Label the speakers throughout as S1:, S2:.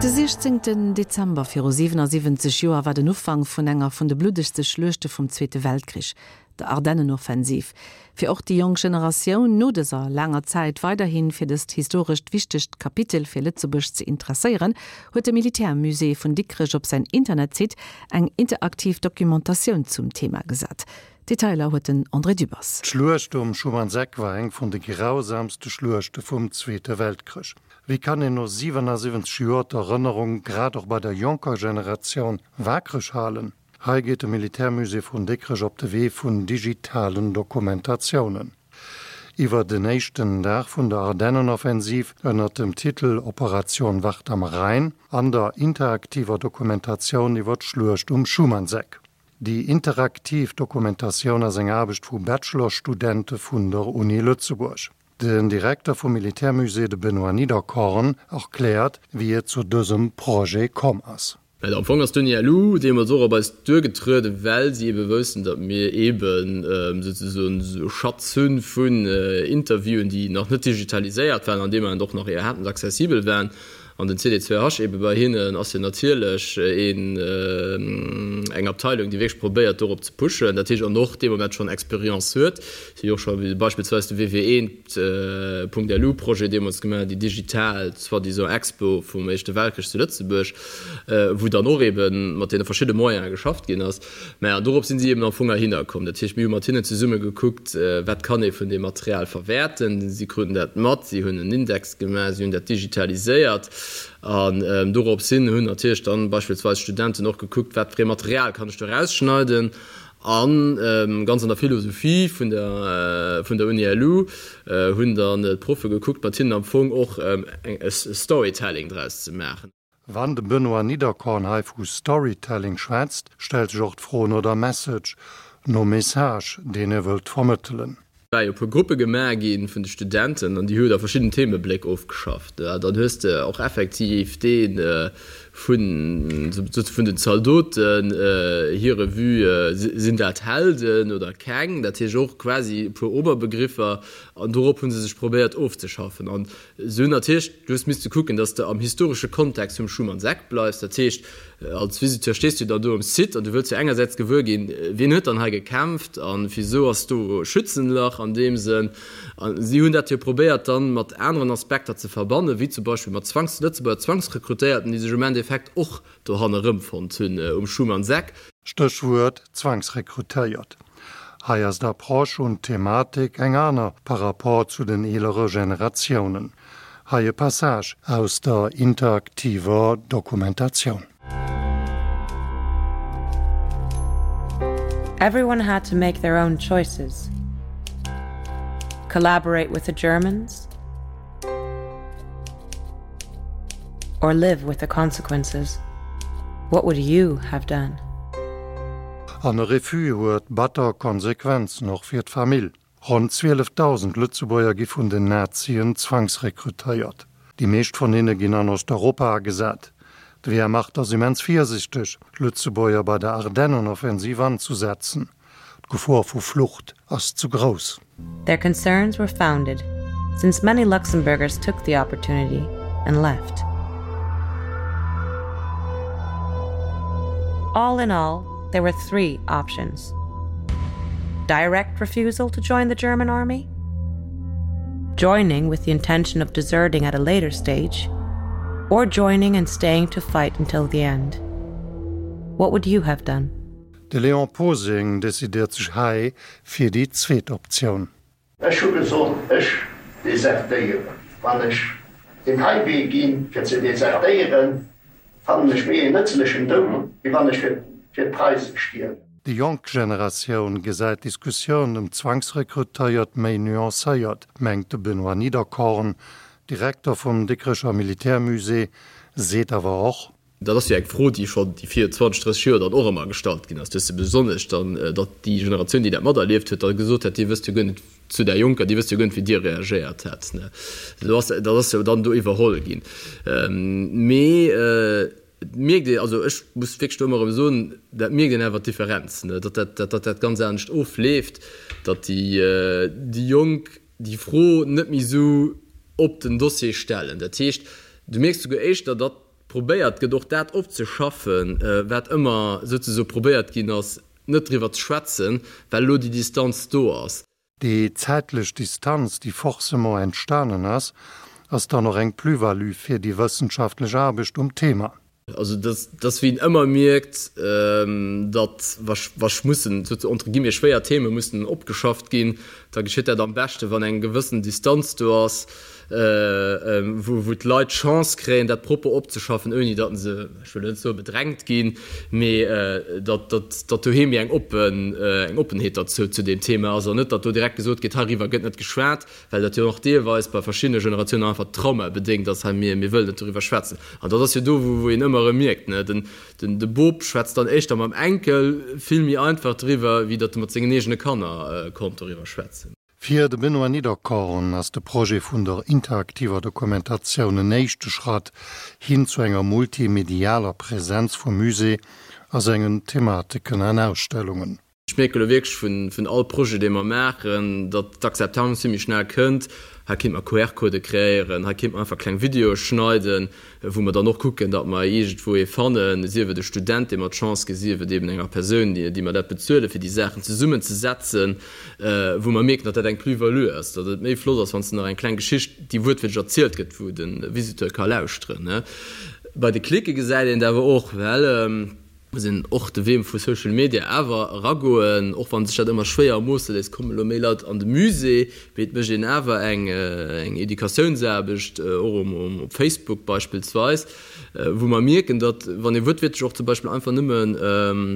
S1: De 16 Dezember viru 77 Joer war den Ufank vun enger vun de bluddegste Schluechte vum Zweete Weltkrich, der Ardennenoffensiv. Fir och déi jonk Generatioun no dëser laanger Zäit weiderhi fir dëst historescht wichtegt Kapitel fir Lëtzebuerg ze interesséieren, huet de Militärmusée vun Dikrech op säin Internetsite eng interaktiv Documentatioun zum Thema gesat. Detailer huet den André Dübbers.
S2: D'Schluecht um Schumannseck war eng vun de grausamste Schluechte vum Zweete Weltkrich. Wéi kann een no 77 Joer d'Erënnerung grad och bei der jonker Generatioun waakreg halen? Hei geet de Militärmusée vun Dikrech op de Wee vun digitalen Dokumentatiounen. Iwwer den éischten Dag vun der Ardennenoffensiv ënnert dem Titel Operation Wacht am Rhein an der interaktiver Dokumentatioun iwwer d'Schluecht um Schumannseck. Déi interaktiv Dokumentatioun ass eng Aarbecht vu Bachelorstudente vun der Uni Lëtzebuerg. Den Direkter vum Militärmusée, de Benoît Niederkorn, erkläert, wéi et zu dësem Projet komm ass.
S3: Well am Fong ass d'Uni LU deemools och op eis duergetrueden, well si eebe woussten, datt mir eeben souzesoen esou e Schatz hu vun Interviewen, déi nach net digitaliséiert waren an deem Ament och nach iwwerhaapt net accessibel waren. An den CD2H eebe bei hinnen ass jo natierlech een, eng Abteilung, déi wierklech probéiert dorop ze pushen, dat heescht an och dee Moment schonn Experience huet. Si hu jo och scho beispillsweis de WW1. .lu Projet deemools gemaach, déi digital soi-disant Expo vum Éischte Weltkrich zu Lëtzebuerg, wou dann och eebe mat deene verschidde Moyene geschafft ginn ass. Mä an dorop sinn si eeben am Fong erhinner komm. Dat heescht, mir hu mat hinnen zesumme gekuckt, wat kann ee vun deem Material verwäerten. Si kruten dat mat, si hunn en Index gemaach, si hunn dat digitaliséiert an dorops hin hunn natierlech dann beispillsweis d'Studenten och gekuckt, wat fir ee Material kann ech do erausschneiden. A ganz an der Philosophie vun der vun der Uni LU hunn dann d'Proffe gekuckt, mat hinnen am Fong och e Storytelling draus ze maachen.
S2: Wann de Benoît Niederkorn hei vu Storytelling schwätzt, stellt sech och d'Fro no der Message, nom Message, deen e wëllt vermëttelen.
S3: War jo e puer Gruppe gemaach gi vun de Studenten an déi hu da verschidden Themebléck ofgeschafft. Dann hues de och effektiv dee vun vun den Zaldoten hire Vue, sinn dat Helden oder keng? Dat heescht och quasi e puer Oberbegriffer an dorop hu se sech probéiert ofzeschaffen. An se hunn natierlech, du hues misste kucken, datt s de am historesche Kontext vum Schumann-Seck bleifs. Dat heescht, als Visiteur stees du dann do um Site an du wëlls jo engersäits gewuer ginn, wien huet dann hei gekämpft a wisou ass do Schützenlach an deem Sënn. A si hunn dat jo probéiert dann mat aneren Aspekter ze verbannen, wéi zum Beispill mat Zwangs-, Lëtzebuerger Zwangsrekrutéierten, déi sech um Endeffekt och dohan erëmfonnt hunn um Schumann-Seck.
S2: Stéchwuert Zwangsrekrutéiert. Hei ass d'Approche un d'Thematik eng aner par rapport zu den eelere Generatiounen. Hei e Passage aus der interaktiver Dokumentatioun.
S4: Everyone had to make their own choices. Collaborate with the Germans or live with the consequences. What would you have done?
S2: An e Refus huet batter Konsequenzen, och fir d'Famill. Ronn 12.000 Lëtzebuerger gi vun den Nazien zwangsrekrutéiert. Déi meescht vun hinne ginn an Osteuropa agesat. D'Wehrmacht ass immens virsichteg, Lëtzebuerger bei der Ardennenoffensiv anzusetzen. D'Gefor vu Flucht ass zu grouss.
S4: Their concerns were founded, since many Luxembourgers took the opportunity and left. All in all, there were three options. Direct refusal to join the German army, joining with the intention of deserting at a later stage, or joining and staying to fight until the end. What would you have done?
S2: De Léon Posing decidéiert sech hei fir déi zweet Optioun.
S5: Ech hu gesot, ech desertéieren. Wann ech deen hei Wee ginn, fir ze desertéieren, fannen ech méi een nëtzlechen Doud, wéi wann ech fir d'Preise stierwen.
S2: Déi jonk Generatioun gesäit d'Diskussioun ëm d'Zwangsrekrutéiert méi nuancéiert, mengt de Benoît Niederkorn. Direkter vum Dikrecher Militärmusée, seet awer och,
S3: Dat ass jo eng Fro, déi schonn déi vir 20, 30 Joer dann och ëmmer gestallt ginn ass. Du hues se besonnesch dann, datt déi Generatioun, déi dat materlieft huet, da gesot hätt, Dir wësst jo guer net, zu där Jonker, Dir wësst jo guer net, wéi Dir reagéiert hätt. Do ass, dat ass jo dann do iwwerholl ginn. Mee et mierkt een, also ech muss wierklech do ëmmer erëm soen, dat mierkt een awer d'Differenz, datt dat, datt dat ganz anescht ofleeft, datt déi, déi Jonk déi Fro net méi esou op den Dossier stellen. Dat heescht, du mierks souguer éischter, datt. probéiert gëtt och dat opzeschaffen, wat ëmmer souzesoe probéiert ginn ass net driwwer ze schwätzen, well elo déi Distanz do ass.
S2: Déi zäitlech Distanz, déi forcément entstanen ass, ass dann och eng Plus-value fir déi wëssenschaftlech Aarbecht um Thema.
S3: Also dat ass wéi een ëmmer mierkt, datt wa wa mussen entre guillemets schwéier Theme mussen opgeschafft ginn, da geschitt dat am beschte wann eng gewëssen Distanz do ass, wou wou d'Leit d'Chance kréien dat propper opzeschaffen, ouni datt se, ech wëll net soe bedrängt ginn, mee datt datt datt doheem méi eng oppen eng Oppenheet derzou zu deem Thema ass an net datt do direkt gesot gétt, heiriwwer gëtt net geschwat. Well dat jo och deelweis bei verschiddene Generatiounen einfach traumabedéngt ass, hei mir, mir wëllen net doriwwer schwätzen. An dat ass jo do, wou, wou een ëmmer erëm mierkt, ne, den, den, de Bop schwätzt dann éischter mam Enkel vill méi einfach driwwer, wéi datt e mat sengen eegene Kanner konnt doriwwer schwätzen.
S2: Fir de Benoît Niederkorn ass de Projet vun der interaktiver Dokumentatioun en éischte Schratt hin zu enger multimedialer Präsenz vum Musée a sengen Thematiken an Ausstellungen.
S3: Ech mierke elo wierklech vun all Projet, dee mer maachen, datt d'Akzeptanz vill méi schnell kënnt. Hei kéint mer QR-Codë kreéieren, hei kéint mer einfach kleng Videoe schneiden, wou mer dann och kucken, datt mer iergendwou ee fannen, sief et e Student, deem mer d'Chance ginn, sief et eben enger Persoun, déi mer dat bezuelen, fir déi Saachen zesummenzesetzen, wou mer mierken, datt dat eng Plus-value ass, datt et méi flott ass, wann s de nach eng kleng Geschicht, déi wuertwiertlech erzielt gëtt, wou de Visiteur ka lauschteren. Bei de Klicke gesäit een et awer och, well. Muss een och de Wee vu Social Media awer eragoen, och wann sech dat ëmmer schwéier ermoosse léisst, kommen elo méi Leit an de Musée, mee et mécht een awer eng Educatiounsaarbecht, och op Facebook beispillsweis, wou mer mierken, datt wann ee wuertwiertlech och zum Beispill einfach nëmmen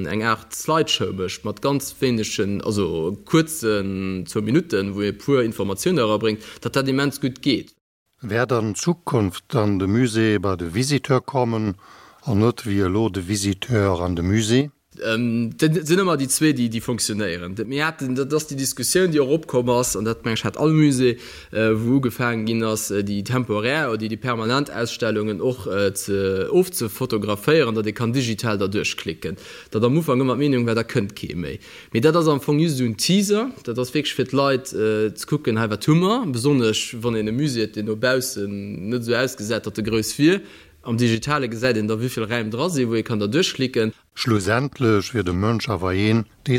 S3: eng Aart Slideshow mécht mat ganz wéinegen, also kuerzen, zwou Minutten, wou ee puer Informatioune erabréngt, datt dat immens gutt geet.
S2: Wäert an Zukunft dann de Musée bei de Visiteur kommen an net wéi elo de Visiteur an de Musée?
S3: Dat sinn ëmmer déi zwee, déi fonctionnéieren. Mir haten, dat ass déi Diskussioun, déi och opkomm ass, an dat, meng ech, hat all Musée, wou ugefaangen ginn ass, déi temporär oder déi permanent Ausstellungen och ze ofzefotograféieren, datt ee kann digital derduerch klicken. Datt am Ufank ëmmer d'Meenung war, da kënnt kee méi. Mee dat ass am Fong just esou en Teaser. Dat ass wierklech fir d'Leit ze kucken, hei wat hu mer. Besonnesch wann een e Musée huet, deen no baussen net esou ausgesäit, datt e grouss wier. Am Digitale gesäit een da wéivill Räim dra sinn, wou ee kann da duerchklicken.
S2: Schlussendlech wier de Mënsch awer een, dee.